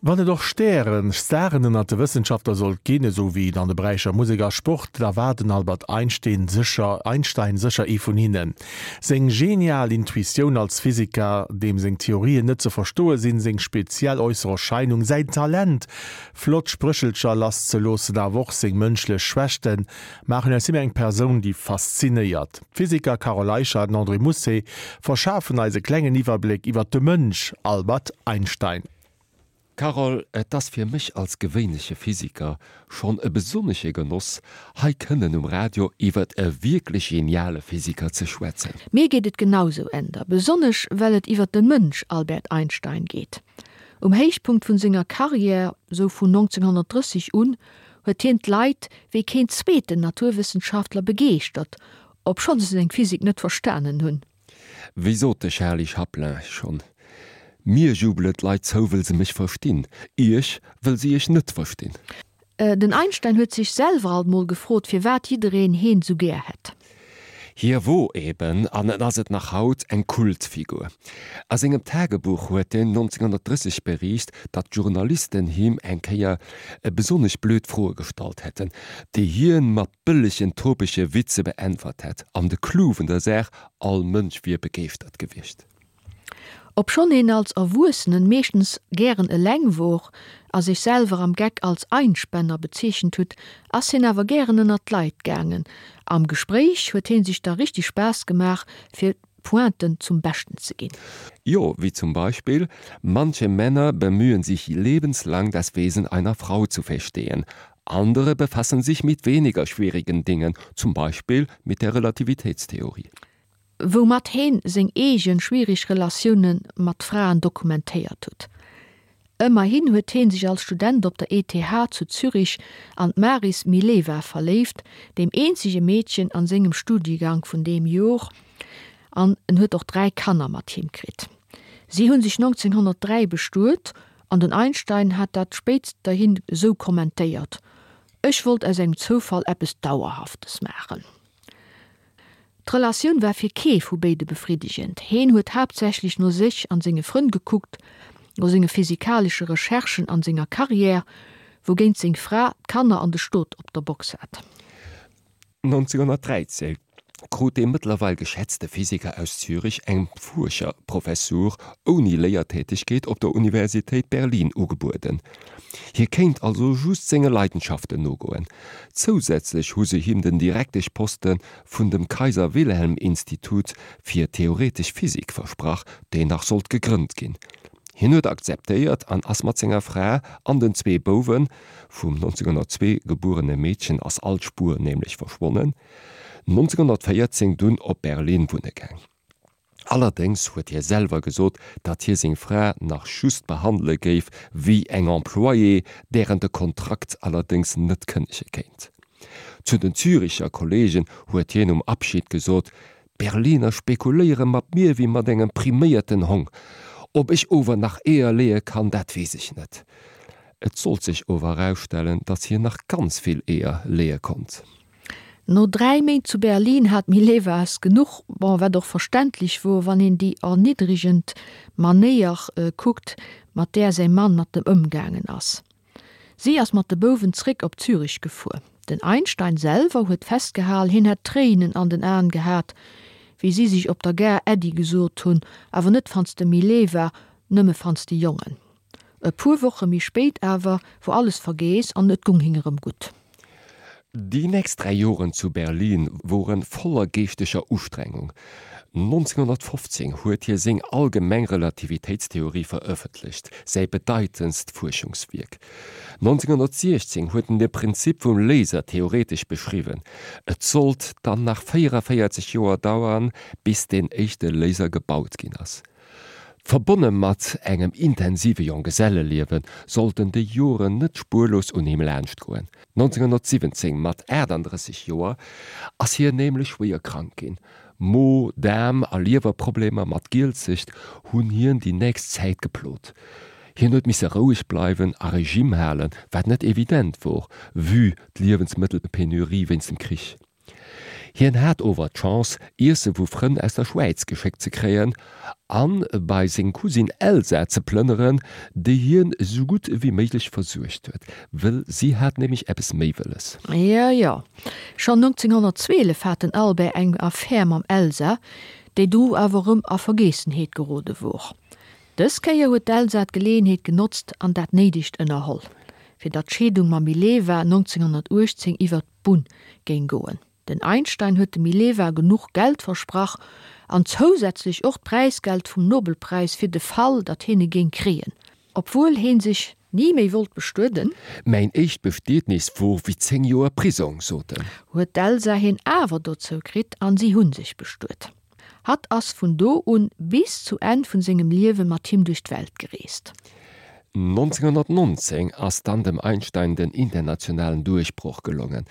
Wann et och Stären, Staren ënnert de Wëssenschaftler sollt ginn, esou wéi et an de Beräicher Musek a Sport, da war den Albert Einstein sécher Einstein sécher ee vun hinnen. Seng genial Intuitioun als Physiker, deem seng Theorien net ze verstoe sinn, seng speziell äusser Erscheinung, säin Talent, flott Spréchelcher lasszeloossen, awer och seng mënschlech Schwächten, maachen aus him eng Persoun, déi faszinéiert. D'Physiker Carole Eicher an André Mousset verschafen eis e klengen Iwwerbléck iwwer de Mënsch Albert Einstein. Carole, et ass fir mech als gewéinleche Physiker schonn e besonnesche Genoss, hei kënnen um Radio iwwert e wierklech geniale Physiker ze schwätzen. Mir geet et genausou, Änder, besonnesch well et iwwert de Mënsch Albert Einstein geet. Um Héichpunkt vun senger Karriär, sou vun 1930 un, huet hien d'Leit wéi keen zweeten Naturwëssenschaftler begeeschtert, obschonn se seng Physik net verstanen hunn. Wéi sot de Charlie Chaplin schonn, Mir jubelen d'Leit zou, wëll se mech verstinn, iech, wëll se iech net verstinn. Den Einstein huet sech selwer alt mol gefrot, firwat jiddereen heen sou gär hätt. Hie wor eben, an en ass et nach haut, eng Kultfigur. A sengem Tagebuch huet en 1930 beriicht, datt d'Journalisten him eng Kéier besonnesch blöd Froe gestallt hätten, déi hien mat bëllegen topege Witze beäntwert hätt, an de Clou vun der Saach, all Mënsch wier begeeschtert gewiescht. Obschonn een als Erwuessenen meeschtens gären eleng wor a sech selwer am Geck als Einspänner bezeechent hutt, ass hien awer gären ënnert d'Leit gaangen. Am Gespréich huet hien sech da richtig Spaass gemaach fir Pointen zum Beschten ze ginn. Jo, wéi zum Beispill, Manche Männer bemühen sich lebenslang das Wesen einer Frau zu verstehen, Andere befassen sich mit weniger schwierigen Dingen, zum Beispiel mit der Relativitätstheorie. Woumat heen seng eegen schwierig Relatiounen mat Fraen dokumentéiert hutt. Ëmmerhin huet heen sech als Student op der ETH zu Zürich an d'Maris Mileva verléift, deem eenzege Meedchen an sengem Studiegank vun deem Jor, an en huet och 3 Kanner mat him kritt. Si hunn sech 1903 bestuet An den Einstein hat dat spéitsterhin esou kommentéiert, Ech wollt aus engem Zoufall eppes Dauerhaftes maachen. D'Relatioun war fir kee vu béide befriddegend. Heen huet haaptsächlech no sech an senge Frënn gekuckt, no senge physikalesche Recherchen an senger Carrière, wougéint seng Fra d'Kanner an de Stot op der Box hat. 1913 krut dee mëttlerweil geschätzte Physiker aus Zürich eng Fuerscherprofessur ouni Léiertätegkeet op der Universitéit Berlin ugebueden. Hie kéint also just senge Leidenschaften nogoen. Zousätzlech hu se him den Direkteschposte vun dem Kaiser-Wilhelm-Institut fir theoretesch Physik versprach, deen nach sollt gegrënnt ginn. Hien huet akzeptéiert an ass mat senger Fra an den zwee Bouwen, vum 1902 gebuerene Meedchen ass all Spuer nämlech verschwonnen, 1914 dunn op Berlin wunne gaang. Allerdéngs huet hie selwer gesot, datt hie seng Fra nach just behandele géif wéi eng Employée, där en de Kontrakt allerdéngs net kënnege kéint. Zu den Züricher Kolleegen huet hien um Abschied gesot, D'Berliner spekuléiere mat mir wéi mat engem priméierten Hong. Ob ech ower nach Eeër leeë kann, dat weess ech net. Et sollt sech ower erausstellen, datt hien nach ganz vill Eeër leeë konnt. No 3 Méint zu Berlin hat d'Mileva es genuch, bon, wat och verständlech wor, wann een déi erniddregend Manéier kuckt, mat där säi Mann mat em ëmgaangen ass. Si ass mat de Bouwen zréck op Zürich gefuer. Den Einstein selwer huet festgehal, hien hätt Tréinen an den Aen gehat, wéi si sech op der Gare Äddi gesot hunn, awer net fanns de Mileva, nëmme fanns de Jongen. E puer Woche méi spéit awer wor alles vergeess an et gung hing erëm gutt. Déi nächst 3 Joren zu Berlin woren voller geeschteger Ustrengung. 1915 huet hie seng allgemeng Relativitéitstheorie verëffentlecht, säi bedeitendst Fuerschungswierk. 1916 huet en de Prinzip vum Laser theoretesch beschriwwen. Et sollt dann nach 44 Joer dauern, bis deen éischte Laser gebaut ginn ass. Verbonne mat engem intensive Jonggeselleliewe sollten déi Joren net spuerlos un him laanschtgoen. 1917, mat 38 Joer, ass hien nämlech schwéier krank ginn. Mo-, Daarm a Liewerproblemer mat Gielzecht hunn hien déi nächst Zäit geplot. Hien huet misse roueg bleiwen a Regime halen, wat net evident wor, vue d'Liewensmëttelpenurie wéinst dem Krich. Hien hat ower d'Chance, Iesse vu Frënn aus der Schwäiz geschéckt ze kréien an bei seng Cousine Elsa ze plënneren, déi hien esou gutt ewéi méiglech versuergt huet, wëll si hat nämlech eppes méi wëlles. Jo, jo, schonn 1912 hat den Albert eng Affär mam Elsa, déi du awer erëm a Vergeessenheet gerode wor. Dës Kéier huet d'Elsa d'Geleeënheet genotzt an dat Néidegt ënnerholl, fir datt d'Scheedung mam Mileva 1918 iwwer d'Bunn géing goen. Den Einstein huet dem Mileva genuch Geld versprach an zousätzlech och d'Präisgeld vum Nobelpräis fir de Fall, datt hien e géing kréien. Obwuel heen sech ni méi wollt bestueden. Mäin éischt Bestietnis wor wéi 10 Joer Prisong, sot en. Huet d'Elsa hien awer dozou kritt an si hunn sech bestuet. Hatt ass vun do un bis zu Enn vun sengem Liewe mat him duerch d'Welt gereest. 1919 ass dann dem Einstein den internationalen Duerchbroch gelongen.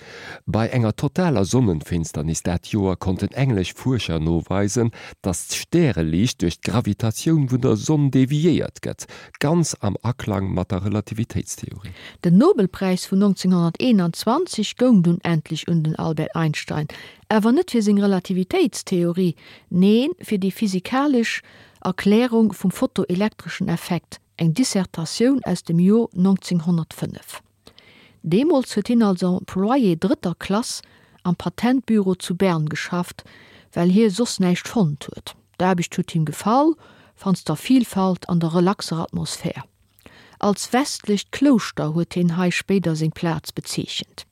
Bei enger totaler Sonnenfinsternis dat Joer konnten englesch Fuerscher noweisen, datt d'Stäreliicht duerch d'Gravitatioun vun der Sonn deviéiert gëtt, ganz am Aklang mat der Relativitéitstheorie. Den Nobelpräis vun 1921 goung dunn endlech un den Albert Einstein, Awer net fir seng Relativitéitstheorie, neen, fir déi physikalesch Erklärung vum fotoelektreschen Effekt, eng Dissertatioun aus dem Jor 1905. Deemools huet hien als Employé drëtter Klass am Patentbüro zu Bern geschafft, well hie soss näischt fonnt huet. D'Aarbecht huet him gefall, wannst der Vielfalt an der relaxer Atmosphär. Als westlecht Klouschter huet hien hei spéider seng Plaz bezeechent.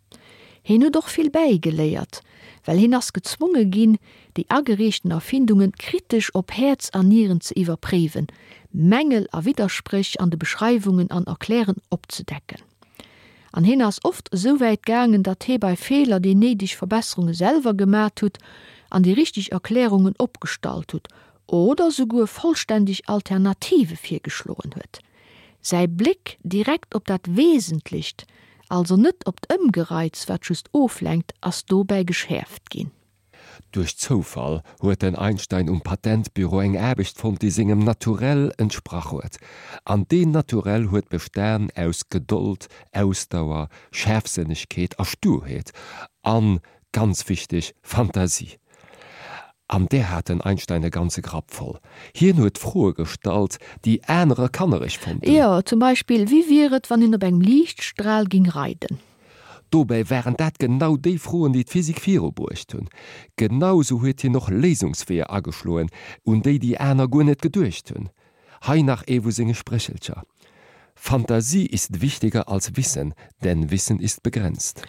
Hien huet och vill bäigeléiert, well hien ass gezwonge ginn, déi agereechten Erfindungen kritesch op Häerz an Nieren ze iwwerpréiwen, Mängel a Widderspréch an de Beschreiwungen an Erklären opzedecken. An hien ass oft esou wäit gaangen, datt hie bei Feeler déi néideg Verbesserunge selwer gemat hutt an déi richteg Erklärungen opgestallt hutt oder souguer vollständeg Alternative virgeschloen huet. Säi Bléck direkt op dat Wesentlecht, also net op d'Ëmgereiz, wat just oflenkt, ass dobäi geschäerft ginn. Duerch Zoufall huet den Einstein um Patentbüro eng Aarbecht fonnt, déi sengem Naturell entsprach huet. An deen Naturell huet bestan aus Gedold, Ausdauer, Schaarfsënnegkeet a Sturheet an, ganz wichteg, Fantasie. An där hat den Einstein e ganze Grapp voll. Hien huet Froe gestallt, déi anerer kannereg fonnten. Jo, zum Beispill, Wéi wier et, wann een op engem Liichtstral ging reiden? Dobäi waren dat genau déi Froen, déi d'Physik virubruecht hunn. Genau sou huet hien och Léisungsweeër ageschloen, un déi déi aner guer net geduecht hunn. Hei nach ee vu senge Spréchelcher, Fantasie ist wichtiger als Wissen, denn Wissen ist begrenzt.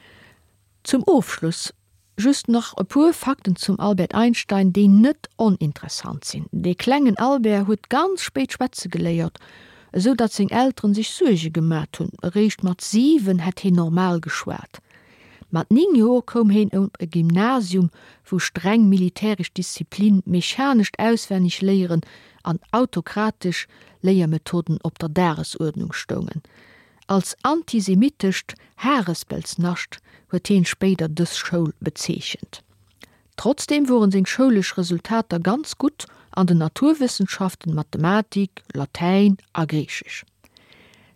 Zum Ofschluss just nach e puer Fakten zum Albert Einstein, déi net oninteressant sinn. Dee klengen Albert huet ganz spéit schwätze geléiert, esou datt seng Elteren sech Suerge gemat hunn. Eréischt mat 7 hätt heen normal geschwat. Mat 9 Joer koum heen op e Gymnasium, wou streng militäresch Disziplin, mechanescht Auswennegléieren an autokratesch Léiermethoden op der Dagesuerdnung stoungen. Als antisemitescht Harespelsnascht huet heen spéider dës Schoul bezeechent. Trotzdeem woren seng schoulesch Resultater ganz gutt an den Naturwëssenschaften, Mathematik, Latäin a Griichesch.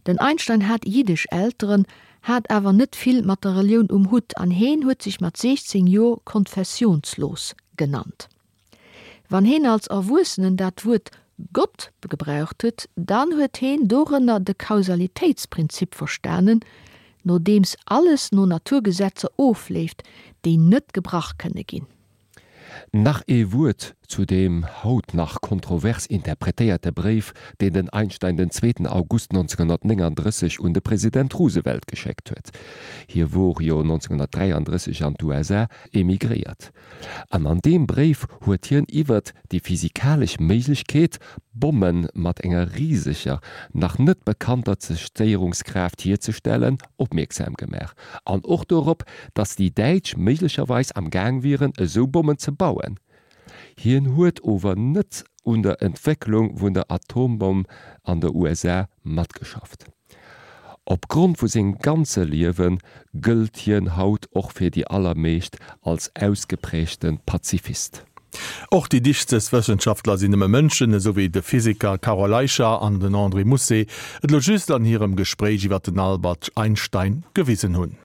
Den Einstein hat jiddesch Elteren, hat awer net vill mat der Relioun um Hutt an heen huet sech mat 16 Joer konfessionslos genannt. Wann heen als Erwuessenen dat Wuert Gott gebraucht huet, dann huet heen dorënner de Kausalitéitsprinzip verstanen, nodeems alles no Naturgesetzer ofleeft, déi net gebrach kënne ginn. Nach ee Wuert zu deem haut nach kontrovers interpretéierte Bréif, deen den Einstein den zweeten August 1939 un de President Roosevelt geschéckt huet. Hie wor jo 1933 an d'USA emigréiert. An an deem Bréif huet hien iwwert déi physikalesch Méiglechkeet, Bomme mat enger riseger, nach net bekannter Zerstéierungskraaft hierzestellen, opmierksam gemaach. An och dorop, datt déi Däitsch méiglecherweis am Gaang wieren, esou Bommen ze bauen. Hien huet ower net un der Entwécklung vun der Atombomm an der USA matgeschafft. Op Grond vu sengem ganze Liewe gëllt hien haut och fir déi allermeescht als ausgeprägte Pazifist. Och déi dichtest Wëssenschaftler sinn nëmme Mënschen, esou wéi de Physiker Carole Eicher an den André Mousset et elo just an hirem Gespréich iwwer den Albert Einstein gewisen hunn.